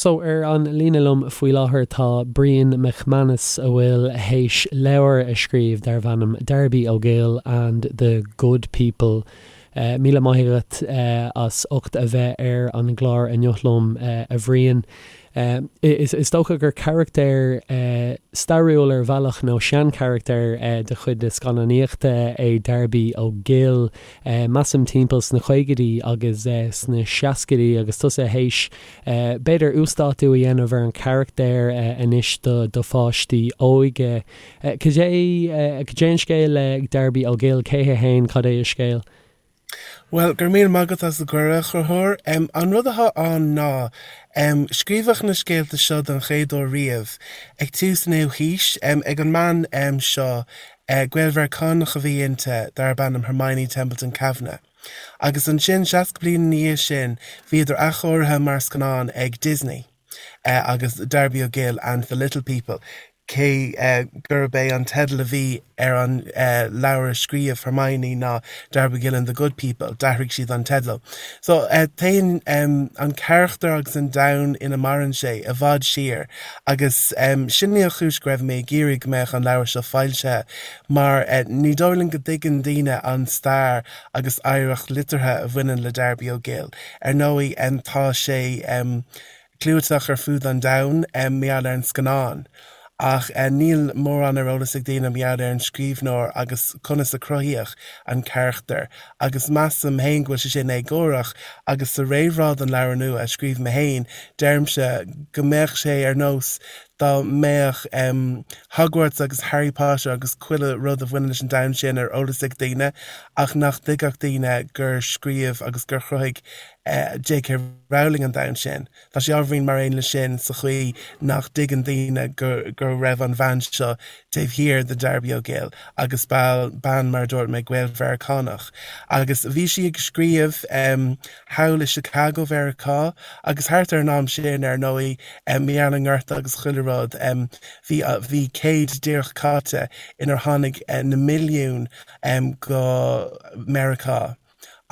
So, ar an líne liom faoi láthair tá Brian McManus a bhfuil théis leabhar a scríobh darbh ainm Darby O'Gill and the Good People. Míle maith agat as ucht a bheith ar an gclár inniu liom, a Bhriain. Is dócha gur carachtar stairiúil ar bhealach nó seancharachtar de chuid na scannánaíochta é Darby O'Gill, measaim timpeall sna caogaidí agus sna seascaidí agus tusa théis b'fhéidir uasdátú a dhéanamh ar an charachtar anois do pháistí óige. Cad é cad é an scéal le Darby O'Gill? Cé hé fhéin? Cad é a scéal? Bhuel, go raibh míle maith agat as an gcuireadh, a Chonchúir. An rud atá ann ná, scríobhadh na scéalta seo don chéad uair riamh ag tús an naoú haois, ag an mbean seo, Gael-Mheiriceánach a bhí inti, darb ainm Hermione Templeton Kavanagh. Agus ansin, 60 bliain ina dhiaidh sin, bhíodar athchóirithe mar scannán ag Disney, agus Darby O'Gill and the Little People. Cé gurb é an teideal a bhí ar an leabhar a scríobh Hermione ná Darby O'Gill and the Good People, d'athraigh siad an teideal. So, téann an carachtar agus an domhan ina maireann sé i bhfad siar agus sin í an chúis go raibh mé ag iarraidh go mbeadh an leabhar seo foilsithe mar ní dóigh liom go dtuigeann daoine an stair agus oidhreacht liteartha a bhaineann le Darby O'Gill. Ar ndóigh, tá sé. clúiteach ar fud an domhain mar gheall ar an scannán, ach níl mórán ar eolas ag daoine mar gheall ar an scríbhneoir agus conas a cruthaíodh an carachtar, agus measaim féin go bhfuil sé sin éagórach, agus sa réamhrá don leabhar nua a scríobh mé féin, deirimse go mbeadh sé ar nós dá mbeadh Hogwarts agus Harry Potter agus chuile rud a bhaineann leis an domhan sin ar eolas ag daoine, ach nach dtuigfeadh daoine gur scríobh agus gur chruthaigh J.K. Rowling an domhan sin. Tá sé ábhairín mar aon leis sin sa chaoi nach dtuigeann daoine go go raibh an bhean seo taobh thiar de Darby O'Gill agus bean, mar a dúirt mé, Gael-Mheiriceánach. Agus bhí sí ag scríobh thall i Chicago Mheiriceá agus thart ar an am sin, ar ndóigh, mar gheall ar an ngorta agus chuile rud, bhí bhí céad díreach caite inar tháinig na milliúin go Meiriceá.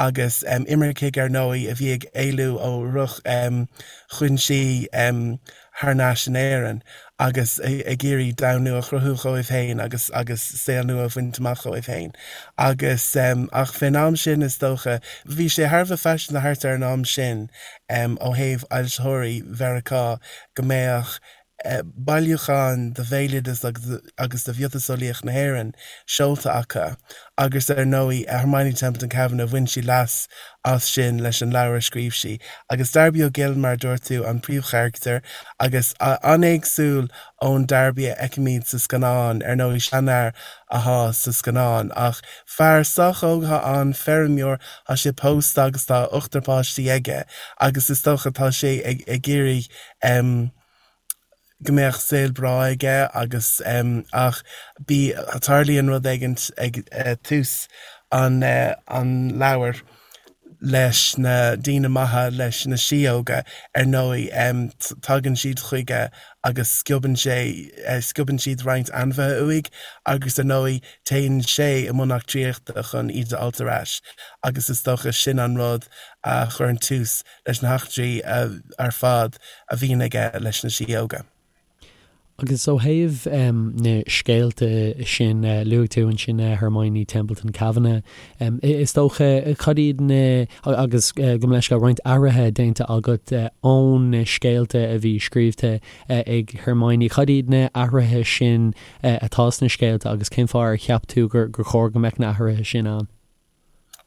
agus imircigh ar ndóigh a bhí ag éalú ó dhroch-chúinsí thar n-ais in Éirinn agus ag iarraidh domhan nua a chruthú dhóibh féin agus agus saol nua a bhaint amach dhóibh féin. Agus ach fén am sin is dócha, bhí sé thar a bheith faiseanta thart ar an am sin ó thaobh fhoilsitheoirí Mheiriceá go mbeadh bailiúchán de bhéaloideas agus de mhiotaseolaíocht na hÉireann seolta acu agus ar ndóigh Hermione Templeton Kavanagh, bhain sí leas as sin leis an leabhar a scríobh sí. Agus Darby O'Gill, mar a dúirt tú, an príomhcharachtar agus an-éagsúil ón Darby a fheicimid sa scannán, ar ndóigh seanfhear athá sa scannán ach fear sách óg athá ann, feirmeoir, tá sé pósta agus tá ochtar páistí aige agus is dócha tá sé ag iarraidh go mbeadh saol breá aige agus ach bí tarlaíonn rud éigint ag tús an an leabhair leis na daoine maithe, leis na síóga, ar ndóigh tagann siad chuige agus sciobann sé, sciobann siad roinnt ainmhithe uaidh agus ar ndóigh téann sé i mbun eachtraíochta chun iad a fháilt ar ais agus is dócha sin an rud a chuireann tús leis na heachtraí ar fad a bhíonn aige leis na síóga. Agus ó thaobh na scéalta sin, luaigh tú ansin Hermione Templeton Kavanagh, is dócha, cad iad na, agus gabh mo leithscéal, roinnt athruithe déanta agat ón na scéalta a bhí scríobhta ag Hermione, cad iad na athruithe sin atá sna scéalta agus cén fáth ar cheap tú gur chóir go mbeadh na athruithe sin ann?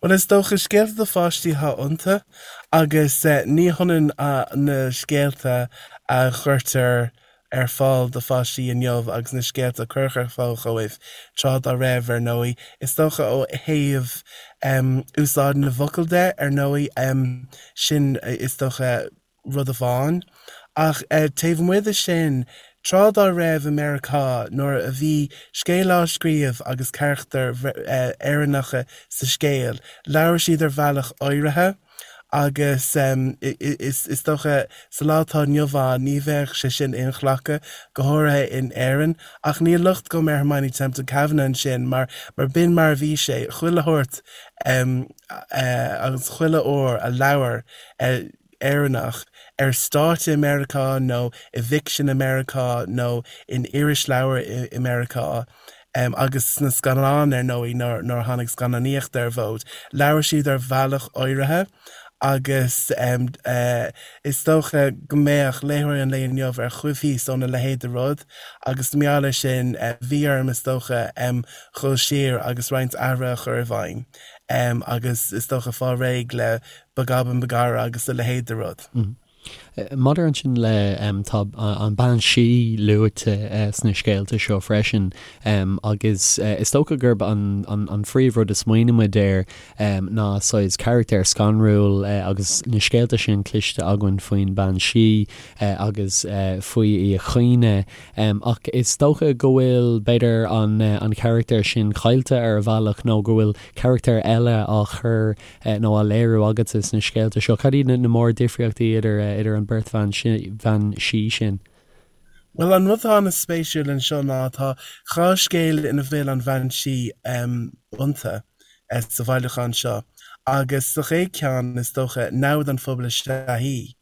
Bhuel, is dócha, scéalta do pháistí atá iontu agus ní hionann na scéalta a chuirtear ar fáil do pháistí inniu agus na scéalta a cuireadh ar fáil dhóibh tráth dá raibh, ar ndóigh. Is dócha ó thaobh úsáid na bhfocal de, ar ndóigh, sin is dócha, rud amháin. Ach taobh amuigh de sin, tráth dá raibh i Meiriceá, nuair a bhí scéal á scríobh agus carachtair Éireannacha sa scéal, labhair siad ar bhealach áirithe agus is dócha sa lá atá inniu ann ní bheadh sé sin inghlactha, go háirithe in Éirinn. Ach níl locht agam ar Hermione Templeton Kavanagh ansin mar b'in mar a bhí sé, chuile shórt agus chuile uair a labhair. Éireannach ar stáitse i Meiriceá nó i bhficsean i Meiriceá nó in irisleabhair i Meiriceá, agus sna scannáin ar ndóigh nuair a tháinig scannánaíocht ar an bhfód, labhair siad ar bhealach áirithe agus is dócha go mbeadh léitheoirí an lae inniu ar choimhthíos óna leithéid de rud agus mar gheall air sin bhí orm is dócha dhul siar agus roinnt athruithe a chur i bhfeidhm agus is dócha fáil réidh le Begobin Begorrah agus a leithéid de rud. Maidir ansin le, tá an bean sí luaite sna scéalta seo freisin agus is dócha gurb an phríomhrud a smaoinímid air ná saghas carachtar scanrúil agus na scéalta sin cloiste againn faoin bean sí agus faoi í a chaoineadh ach is dócha go bhfuil b'fhéidir an carachtar sin caillte ar a bhealach nó go bhfuil carachtar eile á chur nó á léiriú agatsa sna scéalta seo? Cad iad na mórdhifríochtaí idir idir an bheirt bhean bhean sí sin? Bhuel, an rud atá an-spéisiúil anseo ná tá 2 scéal ina bhfuil an bhean sí iontu sa bhailiúchán seo agus sa chéad cheann, is dócha, namhaid an phobail is ea í.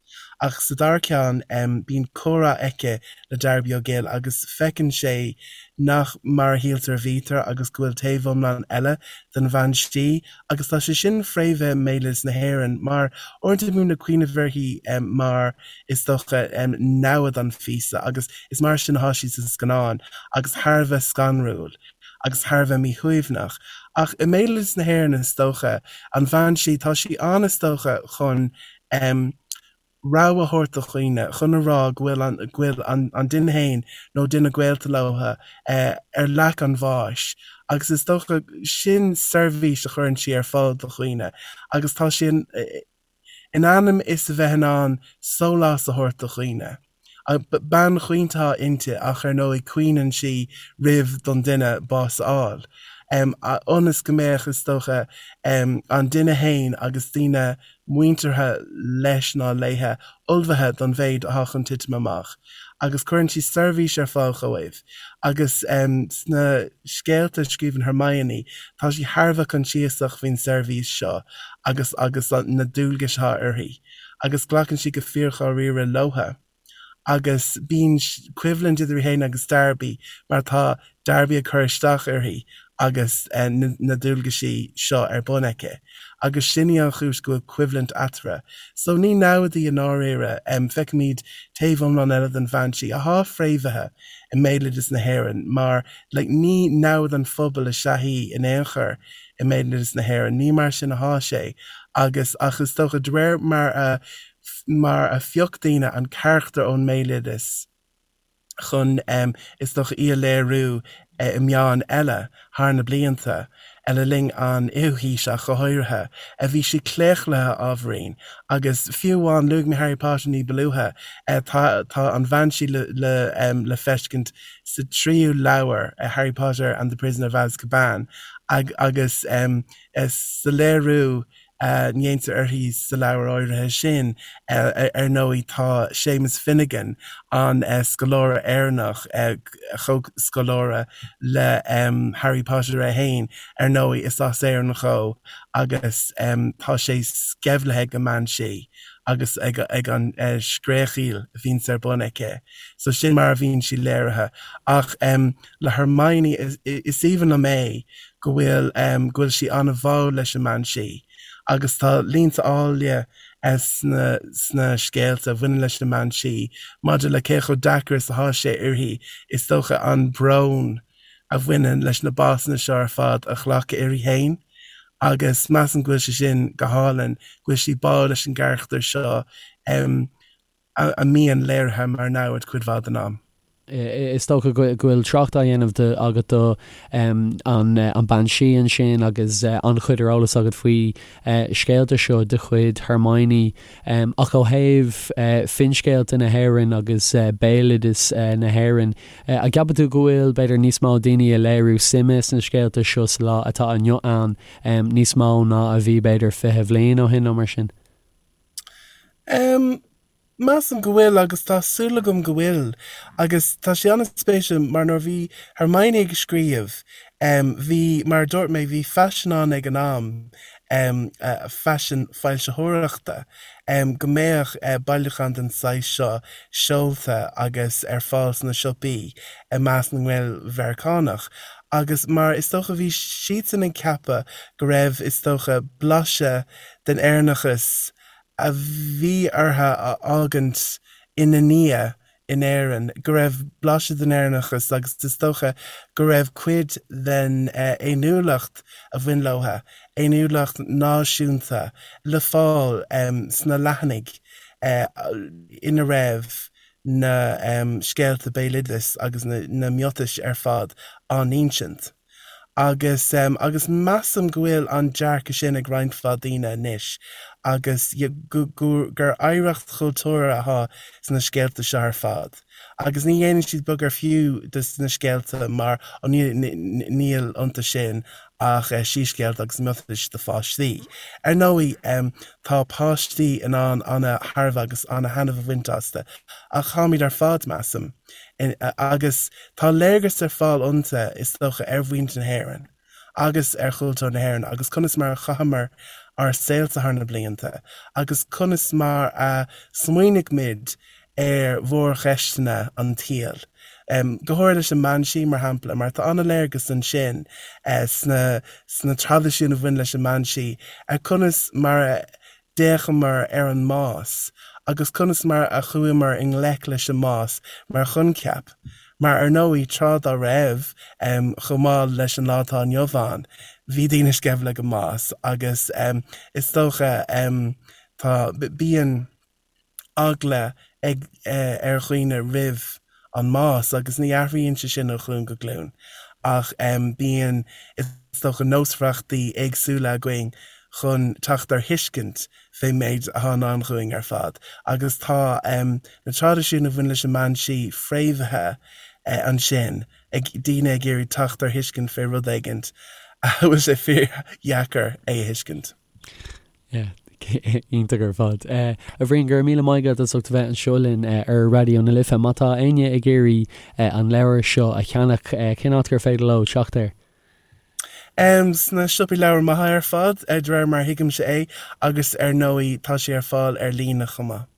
Ach sa dara ceann, bíonn comhrá aici le Darby O'Gill agus feiceann sé nach mar a shíltear a bhítear agus go bhfuil taobh iomlán eile den bhean sí agus tá sé sin fréamhaithe i mbéaloideas na hÉireann mar uaireanta bímid ag cuimhneamh uirthi mar is dócha namhaid an phíosa agus is mar sin atá sí sa scannán agus thar a bheith scanrúil agus thar a bheith míshuaimhneach. Ach i mbéaloideas na hÉireann is dócha, an bhean sí, tá sí ann is dócha chun rabhadh a thabhairt do dhaoine, chun a rá go bhfuil an, go bhfuil an, an duine féin nó duine gaolta leo ar leac an bháis agus is dócha sin seirbhís a chuireann sí ar fáil do dhaoine agus tá sí in, in ainm is a bheith in ann sólás a thabhairt do dhaoine. Bean chaointe atá inti ach ar ndóigh caoineann sí roimh don duine bás a fháil. Ionas go mbeadh, is dócha, an duine fhéin agus daoine muinteartha leis ná léithe ullmhaithe don mhéid atá chun titim amach. Agus cuireann sí seirbhís ar fáil dhóibh. Agus sna scéalta a scríobhann Hermione, tá sí thar a bheith coinsiasach faoin seirbhís seo agus agus na dualgais atá uirthi. agus glacann sí go fíordháiríre leotha. Agus bíonn coimhlint idir í féin agus Darby mar tá Darby ag cur isteach uirthi agus na dualgaisí seo ar bun aici. Agus sin í an chúis go bhfuil coimhlint eatarthu. So ní namhaid í i ndáiríre. Feicimid taobh iomlán eile den bhean sí, athá fréamhaithe i mbéaloideas na hÉireann mar like ní namhaid an phobail is ea í in aon chor. i mbéaloideas na hÉireann. Ní mar sin athá sé agus ach is dócha de réir mar a mar a phioc daoine an carachtar ón mbéaloideas chun is dócha í a léiriú i meáin eile thar na blianta, le linn an fhichiú haois ach go háirithe, bhí sí claochlaithe ábhairín agus fiú amháin luaigh mé Harry Potter ní ba luaithe, tá tá an bhean sí le le le feiscint sa tríú leabhar, Harry Potter and the Prisoner of Azkaban, agus sa léiriú a ndéantar uirthi sa leabhar áirithe sin, ar ndóigh, tá Séamus Finnegan, an scoláire Éireannach, comhscoláire le Harry Potter é féin, ar ndóigh, is as Éirinn dhó agus tá sé sceimhlithe ag an mbean sí agus ag an scréachaíl a bhíonns ar bun aici. So sin mar a bhíonn sí léirithe. Ach le Hermione, is aoibhinn liom é go bhfuil, go bhfuil sí an-bháúil leis an mbean sí agus tá línte áille sna, sna scéalta a bhaineann leis an mbean sí maidir le cé chomh deacair is atá sé uirthi, is dócha, an brón a bhaineann leis na básanna seo ar fad a ghlacadh uirthi féin agus measaim go bhfuil sé sin go hálainn, go bhfuil sí báúil leis an gcarachtar seo. A mbíonn léirithe mar namhaid cuid mhaith den am. Is dócha go bhfuil trácht á dhéanamh agat do an bean sí ansin agus an-chuid ar eolas agat faoi scéalta seo de chuid Hermione. Ach ó thaobh finscéalta na hÉireann agus béaloideas na hÉireann, an gceapann tú go bhfuil b'fhéidir níos mó daoine ag léiriú suime sna scéalta seo sa lá atá inniu ann, níos mó ná a bhí b'fhéidir 20 bhliain ó shin nó mar sin? Em, measaim go bhfuil agus tá súil agam go bhfuil. Agus tá sé an-spéisiúil mar nuair a bhí Hermione ag scríobh, em, bhí, mar a dúirt mé, bhí faisean ann ag an am. Faisean foilsitheoireachta go mbeadh bailiúchán den saghas seo seolta agus ar fáil sna siopaí i measc na nGael-Mheiriceánach agus mar is dócha bhí siadsan ag ceapadh go raibh is dócha blaiseadh den Éireannachas a bhí orthu a fhágaint ina ndiaidh in Éirinn, go raibh blaiseadh den Éireannachas agus is dócha go raibh cuid den fhéiniúlacht a bhain leo, fhéiniúlacht náisiúnta, le fáil sna leathanaigh ina raibh na scéalta béaloidis agus na miotais ar fad á n-insint. Agus, agus measaim go bhfuil an dearcadh sin ag roinnt mhaith daoine anois agus go, gur oidhreacht chultúrtha atá sna scéalta seo ar fad. Agus ní dhéanann siad beag ar fiú de na scéalta mar, ó níl, níl iontu sin ach síscéalta agus miotais do pháistí. Ar ndóigh, tá páistí in ann ana-thairbhe agus ana-thaitneamh a bhaint astu ach táimid ar fad, measaim, Agus tá léargas ar fáil iontu, is dócha, ar mhuintir na hÉireann agus ar chultúr na hÉireann agus conas mar a chaitheamar ár saolta thar na blianta agus conas mar a smaoinigh muid ar mhórcheisteanna an tsaoil. Go háirithe leis an mbean sí, mar shampla, mar tá an-léargas ansin sna sna traidisiúin a bhain leis an mbean sí ar conas mar a d'fhéachamar ar an mbás agus conas mar a chuamar i ngleic leis an mbás mar choincheap, mar ar ndóigh, tráth dá raibh, chomh maith leis an lá atá inniu ann, bhí daoine sceimhle ag an mbás agus is dócha, tá, bíonn eagla ag, ar dhaoine roimh an mbás agus ní athraíonn sé sin ó ghlúin go glúin ach bíonn, is dócha, nósmhaireachtaí éagsúla againn chun teacht ar thuiscint fén méid atá i ndán dhúinn ar fad agus tá na traidisiúin a bhain leis an mbean sí fréamhaithe ansin ag daoine ag iarraidh teacht ar thuiscint fé rud éigint a bhfuil sé fíordheacair é a thuiscint. Yeah, iontach ar fad. A Bhriain, go raibh míle maith agat as ucht a bheith anseo linn ar Raidió na Life. Má tá éinne ag iarraidh an leabhar seo a cheannach, cén áit gur féidir leo teacht air? Sna siopaí leabhar maithe ar fad, de réir mar a thuigimse é, agus ar ndóigh tá sé ar fáil ar líne chomh maith.